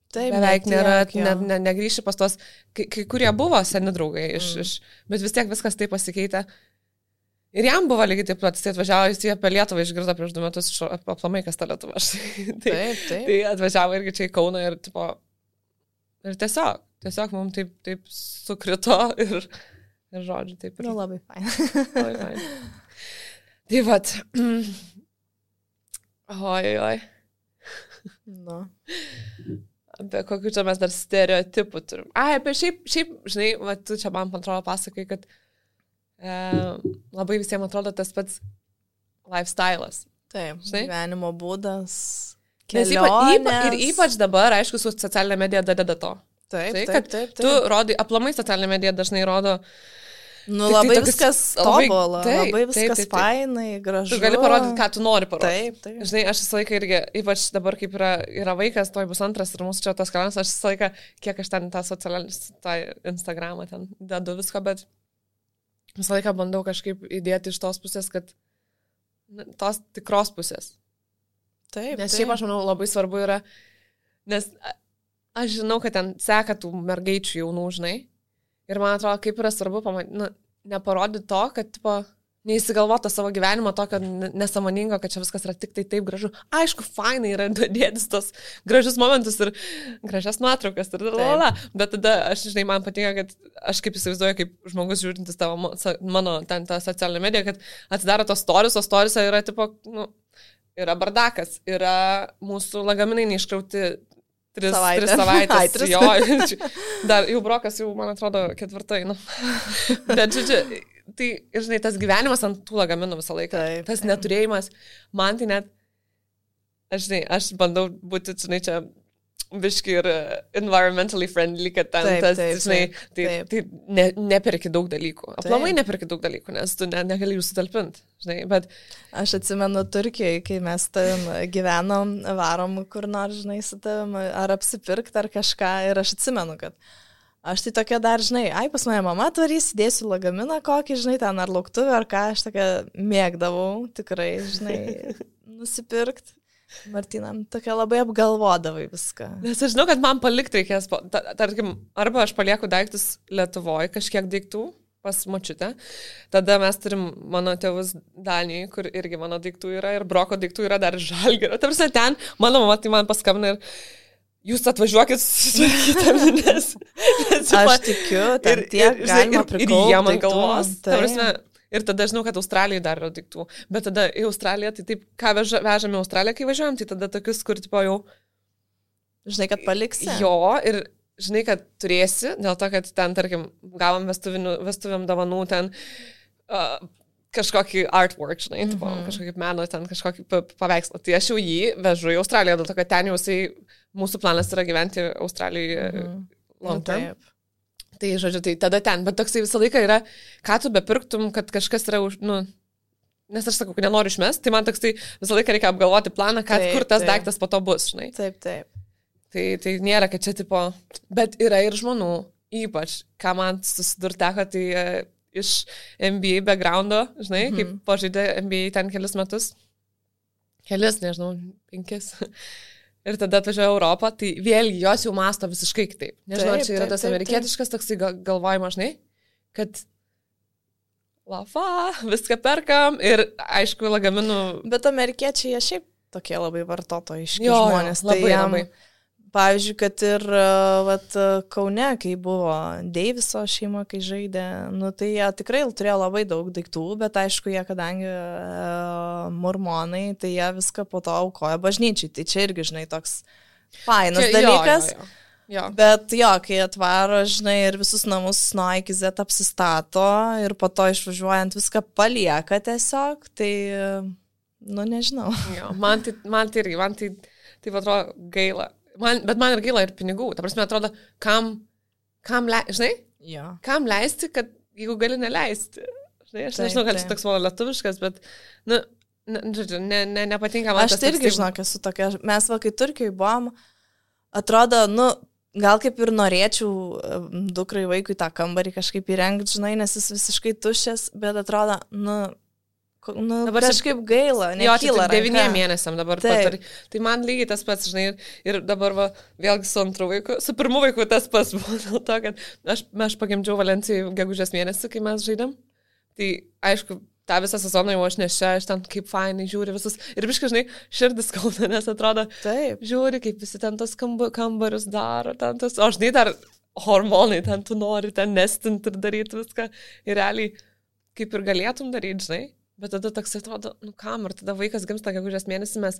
taip, beveik nėra, negrįši pas tos, kai kurie buvo seni draugai, bet vis tiek viskas taip pasikeitė. Ir jam buvo lygiai taip pat, jis atvažiavo, jis apie Lietuvą išgirdo prieš 2 metus, aplamai kas ta Lietuva. Taip. Tai atvažiavo irgi čia į Kauną ir, tipo, ir tiesiog mums taip sukrito ir žodžiu, taip ir. Nu, labai fain. Tai vat. Oi. Nu. Apie kokių čia mes dar stereotipų turim. Apie šiaip, žinai, va, tu čia man atrodo pasakai, kad labai visiems atrodo tas pats lifestyle'as. Taip, žinai? Gyvenimo būdas, kelionės. Ir ypač dabar, aišku, su socialinė medija dadeda to. Taip. Tu rodai, aplamai socialinė medija dažnai rodo Nu, labai viskas tobula, labai viskas fainai, gražu. Tu gali parodyti, ką tu nori parodyti. Taip. Žinai, aš visą laiką irgi, ypač dabar, kaip yra vaikas, toj bus antras ir mūsų čia tas kanalas, aš visą laiką, kiek aš ten tą Instagramą ten dedu viską, bet visą laiką bandau kažkaip įdėti iš tos pusės, kad tos tikros pusės. Taip. Nes šiaip aš manau labai svarbu yra, nes aš žinau, kad ten seka tų mergaičių jaunų, žinai. Ir man atrodo, kaip yra svarbu neparodyti to, kad tipo, neįsigalvoti savo gyvenimo tokio nesąmoningo, kad čia viskas yra tik tai taip gražu. Aišku, fainai yra dėtis tos gražius momentus ir gražias nuotraukas ir lalala. Bet tada aš, žinai, man patinka, kad aš kaip įsivaizduoju, kaip žmogus žiūrintis tavo, mano ten tą socialinę mediją, kad atsidaro tos stories, o storiese yra tipo, yra bardakas, yra mūsų lagaminai neiškrauti 3 savaitės. Jo, dar jau brokas, jau, man atrodo, 4. Bet, žodžiu, tai, žinai, tas gyvenimas ant tų lagaminų visą laiką. Taip. Tas neturėjimas, man tai net, aš bandau būti, žinai, čia biški ir environmentally friendly, kad ten žinai, tai neperki daug dalykų. Aplamai neperki daug dalykų, nes tu negali jų sutalpinti, žinai, bet... Aš atsimenu Turkijoje, kai mes tavim gyvenom, varom kur nors, žinai, su tavim, ar apsipirkti, ar kažką, ir aš atsimenu, kad aš tai tokia dar, žinai, pas mane mama tvarys, dėsiu lagaminą kokį, žinai, ten ar lauktuvę, ar ką, aš tokia mėgdavau, tikrai, žinai, nusipirkti. Martinam, tokia labai apgalvodavai viską. Nes aš žinau, kad man palikti reikės, tarkim, arba aš palieku daiktus Lietuvoje, kažkiek daiktų pas močiutę, tada mes turim mano tėvus Danijai, kur irgi mano daiktų yra ir broko daiktų yra dar Žalgirio. Ta prasme, ten mano mama tai man paskambina ir jūs atvažiuokit susitvarkyti, nes aš tikiu, ten tiek galima prikaupti. Ir jie man galvos. Ta prasme, ir tada žinau, kad Australijai dar yra daiktų. Bet tada į Australiją, tai taip, ką vežame į Australiją, kai važiuojam, tai tada tokius, kur tipo jau... Žinai, kad paliksi. Jo, ir žinai, kad turėsi, dėl to, kad ten, tarkim, gavom vestuvėm dovanų ten kažkokį artwork, žinai, tipo, kažkokį meno, ten kažkokį paveikslą. Tai aš jau jį vežu į Australiją, dėl to, kad ten jau mūsų planas yra gyventi Australijoje long term. Taip. Tai, žodžiu, tai tada ten, bet toksai visą laiką yra, ką tu bepirktum, kad kažkas yra, nes aš sakau, kad nenoriu išmest, tai man toksai visą laiką reikia apgalvoti planą, kur tas daiktas po to bus, žinai. Taip. Tai nėra, kad čia tipo, bet yra ir žmonių, ypač, ką man susidurteko, tai iš NBA backgroundo, žinai, kaip pažaidė NBA ten kelis metus, nežinau, 5. Ir tada atvažiuoja Europą, tai vėlgi jos jau masto visiškai kitaip. Nežinau, ar čia yra tas amerikietiškas toksai galvojimas, žinai, kad viską perkam ir aišku lagaminų. Bet amerikiečiai jie šiaip tokie labai vartotojiški žmonės. Labai. Pavyzdžiui, kad ir Kaune, kai buvo Deiviso šeima, kai žaidė, tai jie tikrai turėjo labai daug daiktų, bet aišku, jie kadangi mormonai, tai jie viską po to aukoja bažnyčiai. Tai čia irgi, žinai, toks fainas dalykas. Jo. Bet jo, kai atvaro, žinai, ir visus namus nuo A iki Z apsistato ir po to išvažiuojant viską palieka tiesiog, tai, nežinau. Jo, man tai atrodo gaila. Bet man ir gaila ir pinigų. Ta prasme, atrodo, kam žinai? Jo. Kam leisti, kad jeigu gali neleisti. Žinai, aš nežinau, kad čia toks mano lietuviškas, bet, žodžiu, nepatinka man. Aš tai irgi, žinok, esu tokia. Mes, kai Turkijoje buvom, atrodo, gal kaip ir norėčiau dukrai vaikui tą kambarį kažkaip įrengti, žinai, nes jis visiškai tuščias, bet atrodo, dabar kažkaip gaila, nekyla. Jo, 9 mėnesiam dabar pat. Tai man lygiai tas pats, žinai, ir dabar vėlgi su antru vaiku, su pirmu vaiku tas pats buvo dėl to, kad aš pagimdžiau Valencijai gegužės mėnesį, kai mes žaidėm. Tai aišku, tą visą sezoną jau aš nešia, aš ten kaip fainai žiūri visus. Ir biškai, žinai, širdis skauda, nes atrodo, žiūri, kaip visi ten tos kambarius daro, ten tos, o žinai, dar hormonai, ten tu nori ten nestinti ir daryti viską. Ir realiai, kaip ir galėtum daryti, žinai. Bet tada toks atrodo, kam, ir tada vaikas gimsta gegužės mėnesį, mes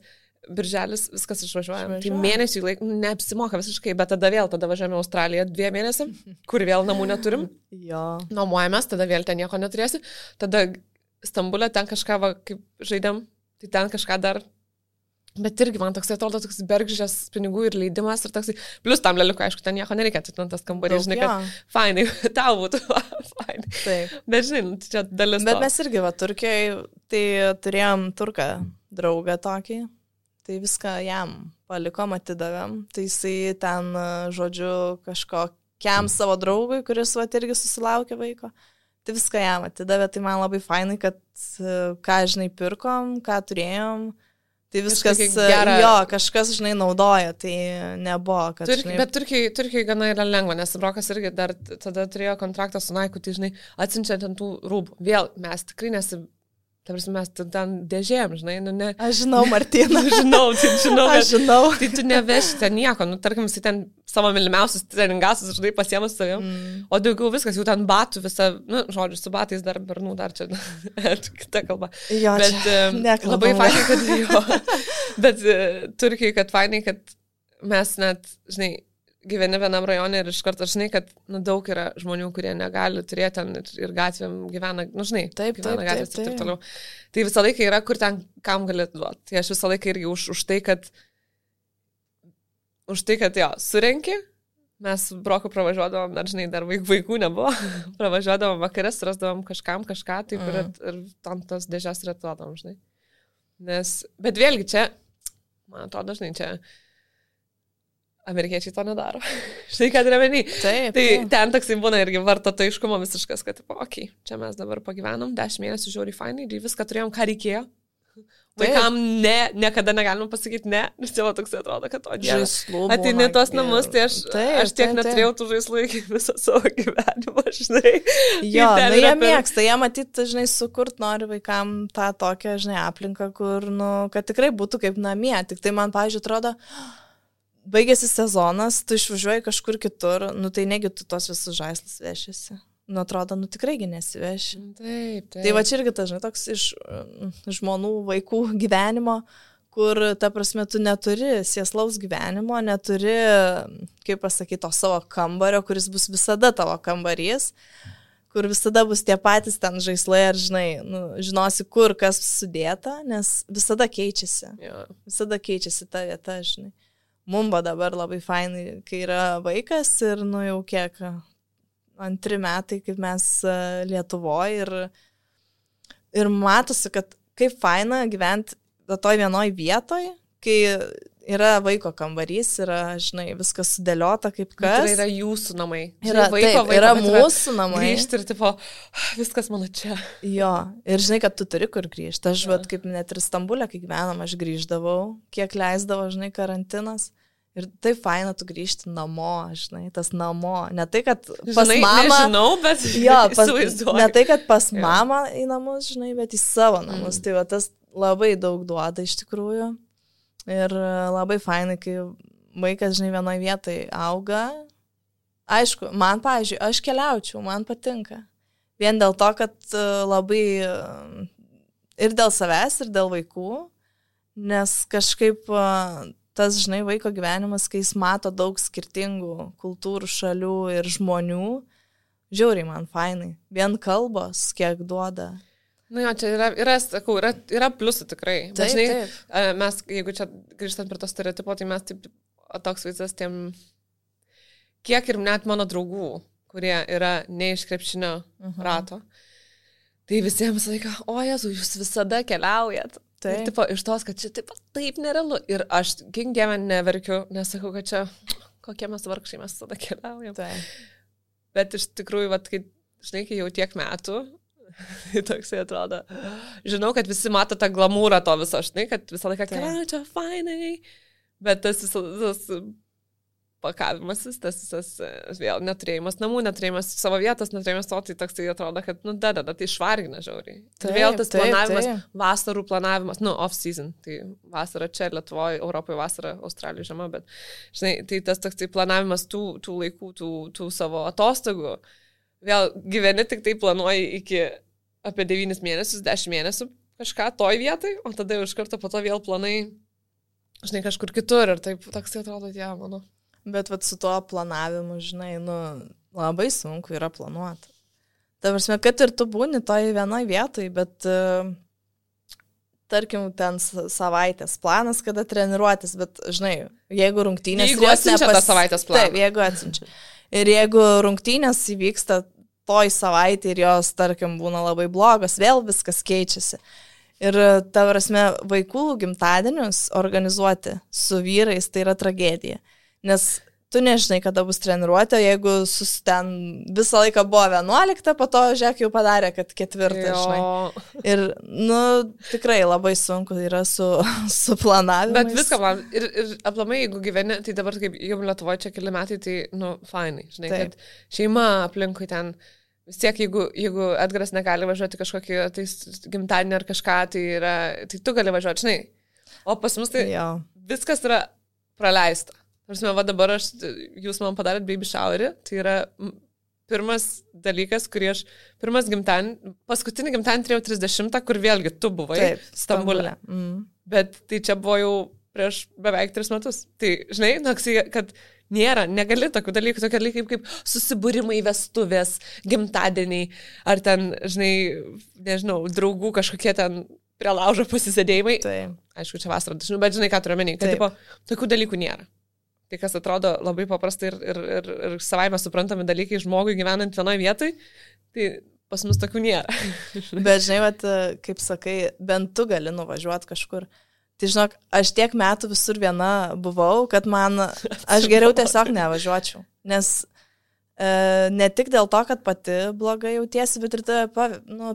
birželis viskas išvažiuojame. Tai mėnesių laik neapsimoka visiškai, bet tada važiuojame į Australiją 2 mėnesiam, kur vėl namų neturim. Jo. Nuomojamės, tada vėl ten nieko neturėsi. Tada Stambulė ten kažką, kaip žaidėm, tai ten kažką dar Bet irgi man toks atrodo toks bergždžias pinigų ir leidimas ir toks, plus tam leliuko, aišku, ten nieko nereikia, tas kambarys, žinai, kad fainai, tau būtų fainai. Taip. Bet žinai, čia dalis. Bet mes irgi, Turkijoje, tai turėjom turką draugą tokį, tai viską jam palikom, atidavėm, tai jisai ten, žodžiu, kažkokiam savo draugui, kuris irgi susilaukė vaiko, tai viską jam atidavė, tai man labai fainai, kad ką, žinai, pirkom, ką turėjom. Tai viskas gera. Jo, kažkas, žinai, naudoja, tai nebuvo, kad... Bet Turkijai gana yra lengva, nes Brokas irgi dar tada turėjo kontraktą su Naiku, tai, žinai, atsiunčiant ant tų rūbų. Vėl, mes tikrai mes ten dėžėjom, žinai, ne... Aš žinau, Martina. Aš žinau. Tai tu neveši ten nieko, tarkim, jis ten savo mylimiausius treningasus, žinai, pasiemus savim, o daugiau viskas, jau ten batų visą, žodžiu, su batais dar bernų, dar čia kita kalba. Jo, bet labai fainai, kad jo, bet Turkijai, kad fainai, kad mes net, žinai, gyveni vienam rajone ir iš karto, žinai, kad daug yra žmonių, kurie negali turėti ten ir gatvėm gyvena, žinai, gyvena gatvės ir taip toliau. Tai visą laiką yra, kur ten kam galėtų duoti. Tai aš visą laiką irgi už tai, jo, surenki, mes Broku pravažiuodavom, dar, žinai, dar vaikų nebuvo, pravažiuodavom vakarės, rasdavom kažką, taip ir tam tas dėžės ir atuodavom, žinai. Bet vėlgi čia, man atrodo, žinai, čia amerikiečiai to nedaro. Štai ką turiu omeny. Tai ten toksai būna irgi vartotojiškumo visiškas, kad, okei, čia mes dabar pagyvenom, 10 mėnesių žiauriai fainai, ir viską turėjom, ką reikėjo. Vaikam niekada negalima pasakyti ne, nes jau toks atrodo, kad ateini tos namus, tai aš tiek neturėjau tų žaislų iki visą savo gyvenimą, žinai. Jo, jie mėgsta, jie matyti, žinai, sukurt nori vaikam tą tokią, žinai, aplinką, kur, kad tikrai būtų kaip namie. Tik tai man, pavyzdžiui, atrodo, baigėsi sezonas, tu išvažiuoji kažkur kitur, tai negi tu tos visus žaislus vešiasi. Atrodo, tikraigi nesiveši. Taip. Tai va čia irgi tas, žinai, toks iš žmonų, vaikų gyvenimo, kur, ta prasme, tu neturi sėslaus gyvenimo, neturi, kaip pasakyti, to savo kambario, kuris bus visada tavo kambarys, kur visada bus tie patys ten žaislai, ar, žinai, žinosi, kur kas sudėta, nes visada keičiasi. Ja. Visada keičiasi ta vieta, žinai. Mumba dabar labai fainai, kai yra vaikas ir, jau kiek, 2 metai, kaip mes Lietuvoje ir matosi, kad kaip faina gyventi toj vienoj vietoj, kai yra vaiko kambarys, yra, žinai, viskas sudėliota kaip kas. Tai yra jūsų namai. Yra, vaiko, yra mūsų namai. Grįžti ir, tipo, viskas mano čia. Jo, ir žinai, kad tu turi kur grįžti. Aš, kaip net ir Stambulė, kai gyvenom, aš grįždavau, kiek leisdavo, žinai, karantinas. Ir tai faina, tu grįžti namo, žinai, tas namo. Ne tai, kad pas mamą... Nežinau, bet įsivaizduoju. Ne tai, kad pas mamą į namus, žinai, bet į savo namus. Tai va, tas labai daug duoda iš tikrųjų. Ir labai fainai, kai vaikas, žinai, vienoje vietoje auga. Aišku, man, pavyzdžiui, aš keliaučiau, man patinka. Vien dėl to, kad labai ir dėl savęs, ir dėl vaikų, nes kažkaip... Tas, žinai, vaiko gyvenimas, kai jis mato daug skirtingų kultūrų, šalių ir žmonių, žiauriai man fainai. Vien kalbos, kiek duoda. Jo, čia yra pliusų tikrai. Bet, žinai, mes, jeigu čia grįžtant prie to stereotipo, tai mes taip, toks vaizdas tiem, kiek ir net mano draugų, kurie yra ne iš krepšinio rato, tai visiems laiką, o Jezu, jūs visada keliaujat. Ir tipo, iš tos, kad čia taip nerealu. Ir aš, gink dievę, neverkiu, nesakau, kad čia kokie mes vargšai, mes tada keliaujam. Bet iš tikrųjų, kai, žinai, kai jau tiek metų, tai toksai atrodo. Žinau, kad visi mato tą glamūrą to viso, žinai, kad visą laiką keliauja čia fainai. Bet tas pakavimasis, tas vėl neturėjimas namų, neturėjimas savo vietos, neturėjimas to, tai toks tai atrodo, kad, tai išvargina žiauriai. Ir vėl tas planavimas, vasarų planavimas, off-season, tai vasara čia, Lietuvoje, Europoje vasara, Australijoje žiema, bet, žinai, tai tas toks tai planavimas tų laikų, tų savo atostogų, vėl gyveni tik tai planuoji iki apie 9 mėnesius, 10 mėnesių kažką toj vietai, o tada jau iš karto po to vėl planai, žinai, kažkur kitur ir taip toks tai atrodo, mano. Bet su tuo planavimu, žinai, labai sunku yra planuoti. Ta prasme, kad ir tu būni toj vienoj vietoj, bet tarkim, ten savaitės planas, kada treniruotis, bet, žinai, jeigu rungtynės... Jeigu atsiunčia tą savaitės planą. Taip, jeigu atsiunčia. Ir jeigu rungtynės įvyksta toj savaitė ir jos, tarkim, būna labai blogos, vėl viskas keičiasi. Ir, ta prasme, vaikų gimtadienius organizuoti su vyrais tai yra tragedija. Nes tu nežinai, kada bus treniruotė, jeigu ten visą laiką buvo 11, po to, žiūrėk, jau padarė, kad 4, žinai. Ir, tikrai labai sunku yra su planavimu. Bet viską plan. Ir aplamai, jeigu gyveni, tai dabar kaip jau Lietuvoje čia keli metai, tai, fainai, žinai, taip. Kad šeima aplinkui ten, vis tiek, jeigu Edgaras negali važiuoti kažkokį tai gimtadienį ar kažką, tai tu gali važiuoti, žinai. O pas mus tai viskas yra praleista. Prasme, va dabar jūs man padarėt baby showerį, tai yra pirmas dalykas, kurį paskutinį gimtadienį turėjau 30, kur vėlgi tu buvai Stambule. Bet tai čia buvo jau prieš beveik 3 metus. Tai, žinai, kad negali tokių dalykų, tokie dalykai kaip susibūrimai, vestuvės, gimtadieniai, ar ten, žinai, nežinau, draugų kažkokie ten prie laužo pasisėdėjimai. Taip. Aišku, čia vasarą, bet žinai, ką turiu omeny, kad tipo, tokių dalykų nėra. Tai kas atrodo labai paprastai ir savaime suprantami dalykai žmogui gyvenant vienoje vietoje, tai pas mus tokių nėra. Bet žinai, vat, kaip sakai, bent tu gali nuvažiuoti kažkur. Tai žinok, aš tiek metų visur viena buvau, kad aš geriau tiesiog nevažiuočiau. Nes ne tik dėl to, kad pati blogai jautiesi, bet ir tave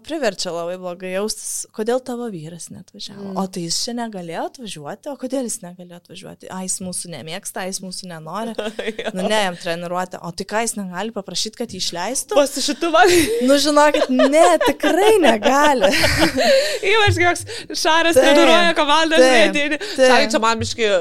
priverčia labai blogai jaustis, kodėl tavo vyras neatvažiavo. O tai jis čia negalėjo atvažiuoti, o kodėl jis negalėjo atvažiuoti? Jis mūsų nemėgsta, jis mūsų nenori. Ne, jam treniruoti. O tai ką jis negali paprašyti, kad jį išleistų? Pasišituvą. Žinokit, ne, tikrai negali. Ypač koks Šaras treniruoja komandą, žinai, Šarai čia man biški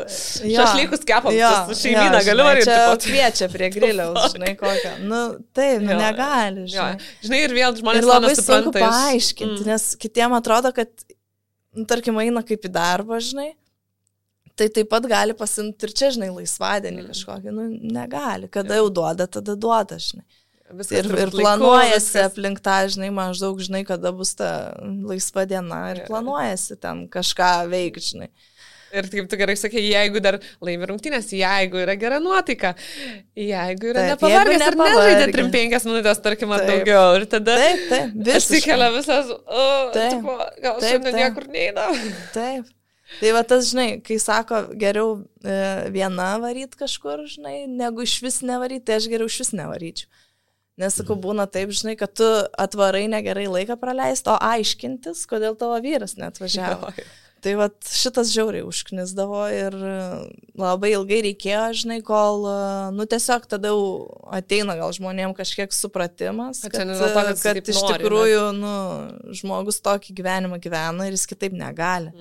šašlykus kepam, šeimyną galiu varyti. Čia kviečia prie griliaus, žinai, kokią. Taip, negali, žinai. Žinai, ir vėl žmonės ir labai sunku paaiškinti, nes kitiem atrodo, kad, tarkim, eina kaip į darbą, žinai, tai taip pat gali pasimti ir čia, žinai, laisvadienį kažkokį, negali. Kada jau duoda, tada duoda, žinai. Ir planuojasi aplink tą, žinai, maždaug, žinai, kada bus ta laisva diena ir planuojasi ten kažką veikti, žinai. Ir kaip tu gerai sakė, jeigu dar laimi rungtynės, jeigu yra gera nuotaika, jeigu yra nepavargęs ir nežaidė 3-5 minutės, tarkim, ar daugiau. Ir tada atsikelia visas, gal šiandien niekur neina. Taip. Tai va tas, žinai, kai sako, geriau viena varyt kažkur, žinai, negu iš vis nevaryt, tai aš geriau iš vis nevaryčiau. Nes, sakau, būna taip, žinai, kad tu atvarai negerai laiką praleisti, o aiškintis, kodėl tavo vyras neatvažiavo. Tai vat šitas žiauriai užknisdavo ir labai ilgai reikėjo, žinai, kol, tiesiog tada jau ateina gal žmonėm kažkiek supratimas, kad iš tikrųjų, žmogus tokį gyvenimą gyvena ir jis kitaip negali.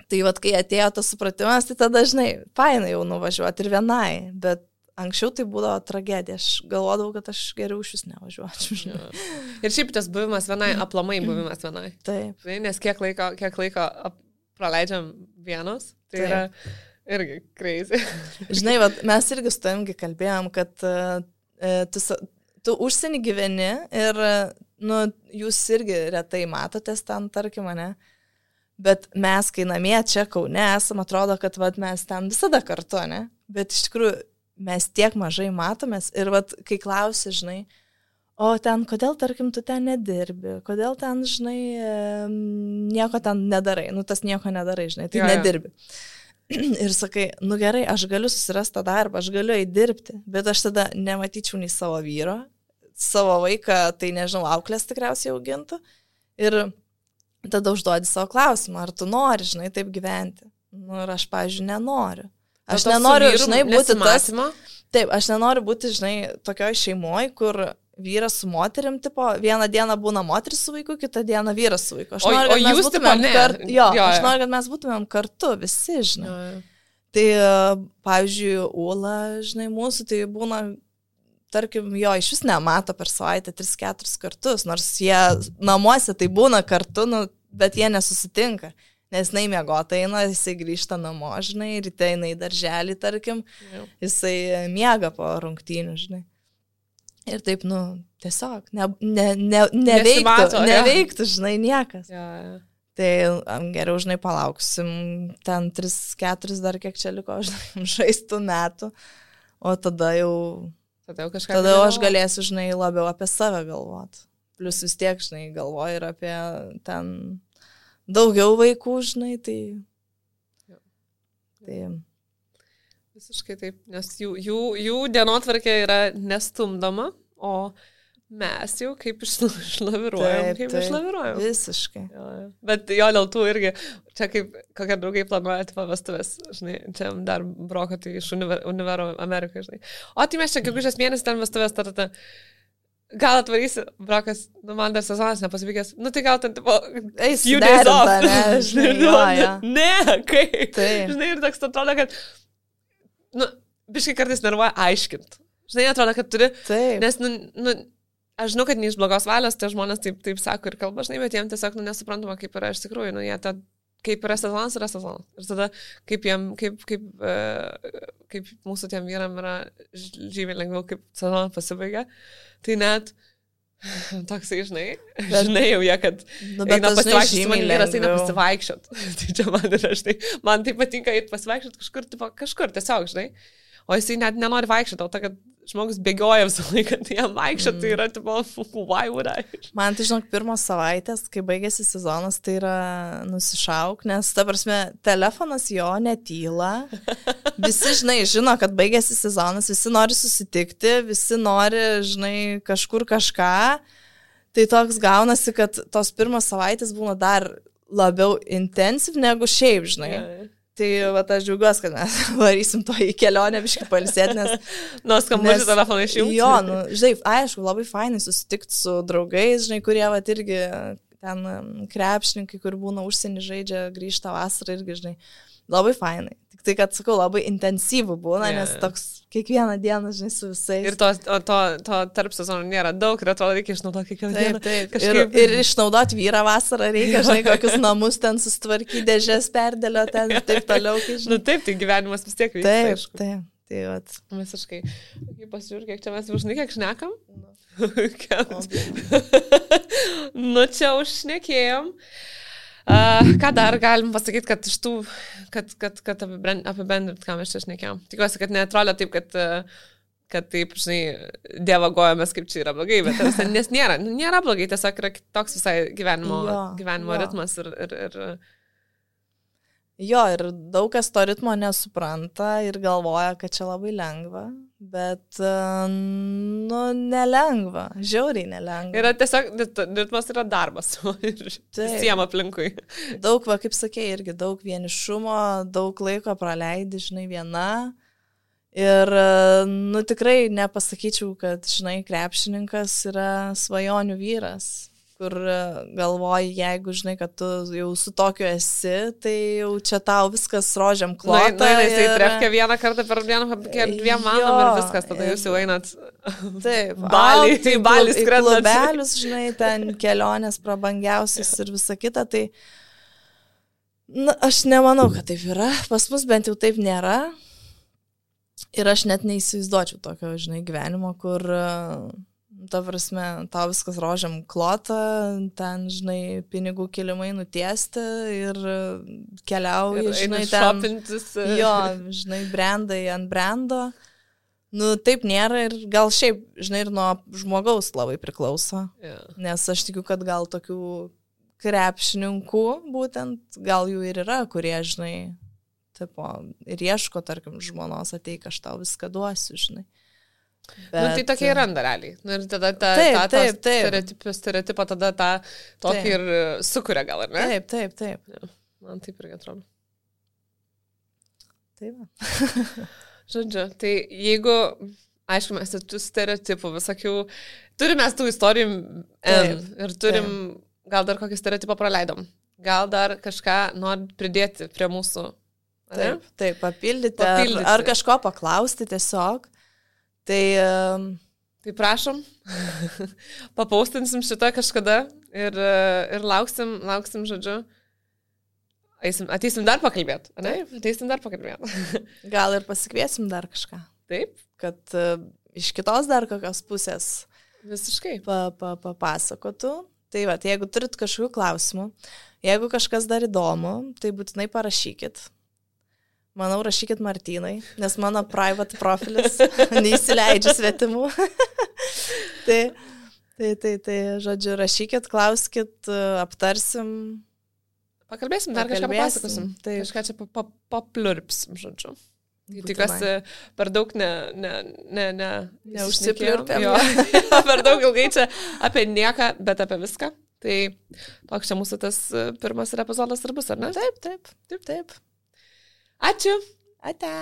Tai vat, kai atėjo tas supratimas, tai tada, žinai, fainai jau nuvažiuoti ir vienai, bet anksčiau tai būdavo tragedija, aš galvodavau, kad aš geriau iš vis nevažiuočiau. Ir šiaip tas buvimas vienai, aplamai buvimas vienai. Taip. Nes kiek laiko praleidžiam vienos, tai yra irgi crazy. Žinai, mes irgi su tavimgi kalbėjom, kad tu užsienį gyveni ir jūs irgi retai matotės ten, tarkim, ne? Bet mes, kai namie čia Kaune esam, atrodo, kad mes ten visada kartu, ne? Bet iš tikrųjų mes tiek mažai matomės ir kai klausi, žinai, o ten, kodėl, tarkim, tu ten nedirbi, kodėl ten, žinai, nieko ten nedarai, tas nieko nedarai, žinai, tai nedirbi. Ir sakai, gerai, aš galiu susirasti tą darbą, aš galiu įdirbti, bet aš tada nematyčiau nei savo vyro, savo vaiką, tai nežinau, auklės tikriausiai augintų. Ir tada užduodi savo klausimą, ar tu nori, žinai, taip gyventi. Ir aš, pavyzdžiui, nenoriu. Aš nenoriu, žinai, būti tas. Taip, aš nenoriu būti, žinai, tokioj šeimoj, kur vyras su moterim, tipo, vieną dieną būna moteris su vaiku, kitą dieną vyras su vaiku. Aš noriu, kad mes būtumėm kartu. Aš noriu, kad mes būtumėm kartu, visi, žinai. Tai, pavyzdžiui, Ula, žinai, mūsų, tai būna, tarkim, iš vis nemato per savaitę 3-4 kartus, nors jie namuose tai būna kartu, bet jie nesusitinka. Nes jinai miegota eina, jisai grįžta namo, žinai, ryte eina į darželį, tarkim, jisai miega po rungtynių, žinai. Ir taip, tiesiog, neveiktų, žinai, niekas. Tai geriau, žinai, palauksim ten 3-4 dar kiek čia liko, žinai, žaistų metų, o tada jau aš galėsiu, žinai, labiau apie save galvoti. Plius vis tiek, žinai, galvoju ir apie ten daugiau vaikų, žinai, tai... Visiškai taip, nes jų dienotvarkė yra nestumdoma, o mes jau kaip išlaviruojam. Visiškai. Bet jo dėl tų irgi, čia kaip kokie draugai planuoja pavestuvės, žinai, čia dar broko tai iš univero Amerikoje, žinai. O tai mes čia gegužės mėnesį ten vestuvės tarta. Gal atvarysi, brokas, man dar sezonas nepasivykęs, tai gal ten, tipo, few days off. Žinai, ne, kaip. Tai. Žinai, ir toks atrodo, kad, biškai kartais nervuoja aiškint. Žinai, atrodo, kad turi, nes, aš žinau, kad ne iš blogos valios, tie žmonės taip sako ir kalba, žinai, bet jiems tiesiog nesuprantama, kaip yra iš tikrųjų, jie kaip yra sezonas, yra sezonas. Ir tada, kaip mūsų tiem vyram yra žymiai lengviau, kaip sezonas pasibaigia, tai net toksai, žinai jau jie, kad eina pasivaikščioti, man vyras eina pasivaikščioti. Tai čia man yra, žinai, man tai patinka eiti pasivaikščioti kažkur tiesiog, žinai. O jisai net nenori vaikščioti, dėl to, kad žmogus bėgioja visą laiką, tai jam vaikščioti, tai yra, tipo, why would I? Man tai, žinok, pirmos savaitės, kai baigėsi sezonas, tai yra nusišauk, nes, ta prasme, telefonas jo netyla. Visi, žinai, žino, kad baigėsi sezonas, visi nori susitikti, visi nori, žinai, kažkur kažką. Tai toks gaunasi, kad tos pirmos savaitės būna dar labiau intensyv negu šiaip, žinai. Tai aš džiaugiuosi, kad mes varysim to į kelionę biškai palisėti, nes... Skambučių telefoną išjungti. Jo, žinai, aišku, labai fainai susitikti su draugais, žinai, kurie irgi ten krepšininkai, kur būna užsienį žaidžia, grįžta vasarą irgi, žinai, labai fainai. Tik tai, kad, sakau, labai intensyvų būna, nes toks kiekvieną dieną, žinai, su visais. Ir to tarp sezonų nėra daug ir atrodo, reikia išnaudoti kiekvieną dieną. Taip. Ir išnaudoti vyrą vasarą reikia, žinai, kokius namus ten sustvarkyti, dėžės perdėlio ten ir taip toliau. Taip, tai gyvenimas vis tiek vyksta. Taip. Tai vat. Visiškai. Pasižiūrėk, kiek čia mes žinai, kiek šnekam? Čia užšnekėjom. Ką dar galim pasakyti, kad iš tų, kad apibendrint, ką mes čia šnekėjom. Tikiuosi, kad neatrodo taip, kad taip, žinai, dievagojamės, kaip čia yra blogai, bet nes nėra blogai, tiesiog yra toks visai gyvenimo ritmas ir... Jo, ir daug kas to ritmo nesupranta ir galvoja, kad čia labai lengva, bet, nelengva, žiauriai nelengva. Yra tiesiog, ritmas yra darbas visiems aplinkui. Daug, kaip sakė, irgi daug vienišumo, daug laiko praleidi, žinai, viena. Ir, tikrai nepasakyčiau, kad, žinai, krepšininkas yra svajonių vyras. Kur galvoji, jeigu žinai, kad tu jau su tokiu esi, tai jau čia tau viskas rožiam klota. Jisai trefkia vieną kartą per dieną, dviem valandom ir viskas, tada jūs jau einat Balį skrendat. Klubelius, žinai, ten kelionės prabangiausias ir visa kita, tai aš nemanau, kad taip yra. Pas mus bent jau taip nėra. Ir aš net neįsivaizduočiau tokio, žinai, gyvenimo, kur... Ta prasme, tau viskas rožiam klota, ten, žinai, pinigų kilimai nutiesti ir keliauji, žinai, ten... Šopintis. Jo, žinai, brandai ant brando. Taip nėra ir gal šiaip, žinai, ir nuo žmogaus labai priklauso. Yeah. Nes aš tikiu, kad gal tokių krepšininkų, būtent, gal jų ir yra, kurie, žinai, tipo, ir ieško, tarkim, žmonos ateik, aš tau viską duosiu, žinai. Bet... tai tokia yra realiai. Ir tada stereotipą tada tą tokį ir sukuria gal, ar ne? Taip. Ja, man taip irgi atrodo. Taip. Žodžiu, tai jeigu, aišku, mes tų stereotipų visokių, turime tų istorijų ir turim, gal dar kokį stereotipą praleidom. Gal dar kažką nori pridėti prie mūsų. Taip, papildyti. Ar kažko paklausti tiesiog. Tai prašom, papaustinsim šitą kažkada ir lauksim, žodžiu. Ateisim dar pakalbėti, ne? Ateisim dar pakalbėti. Gal ir pasikviesim dar kažką. Taip. Kad iš kitos dar kokios pusės visiškai papasakotų. Tai va, jeigu turit kažkokių klausimų, jeigu kažkas dar įdomu, tai būtinai parašykit. Manau, rašykit Martynai, nes mano private profilis neįsileidžia svetimų. Tai, žodžiu, rašykit, klauskit, aptarsim. Pakalbėsim, dar kažką papasakosim. Tai kažką čia paplurpsim, žodžiu. Tikiuosi, per daug neužsipliurpėm. Per daug ilgai čia apie nieką, bet apie viską. Tai toks čia mūsų tas pirmas epizodas ir bus, ar ne? Taip. Ačiū. Ate.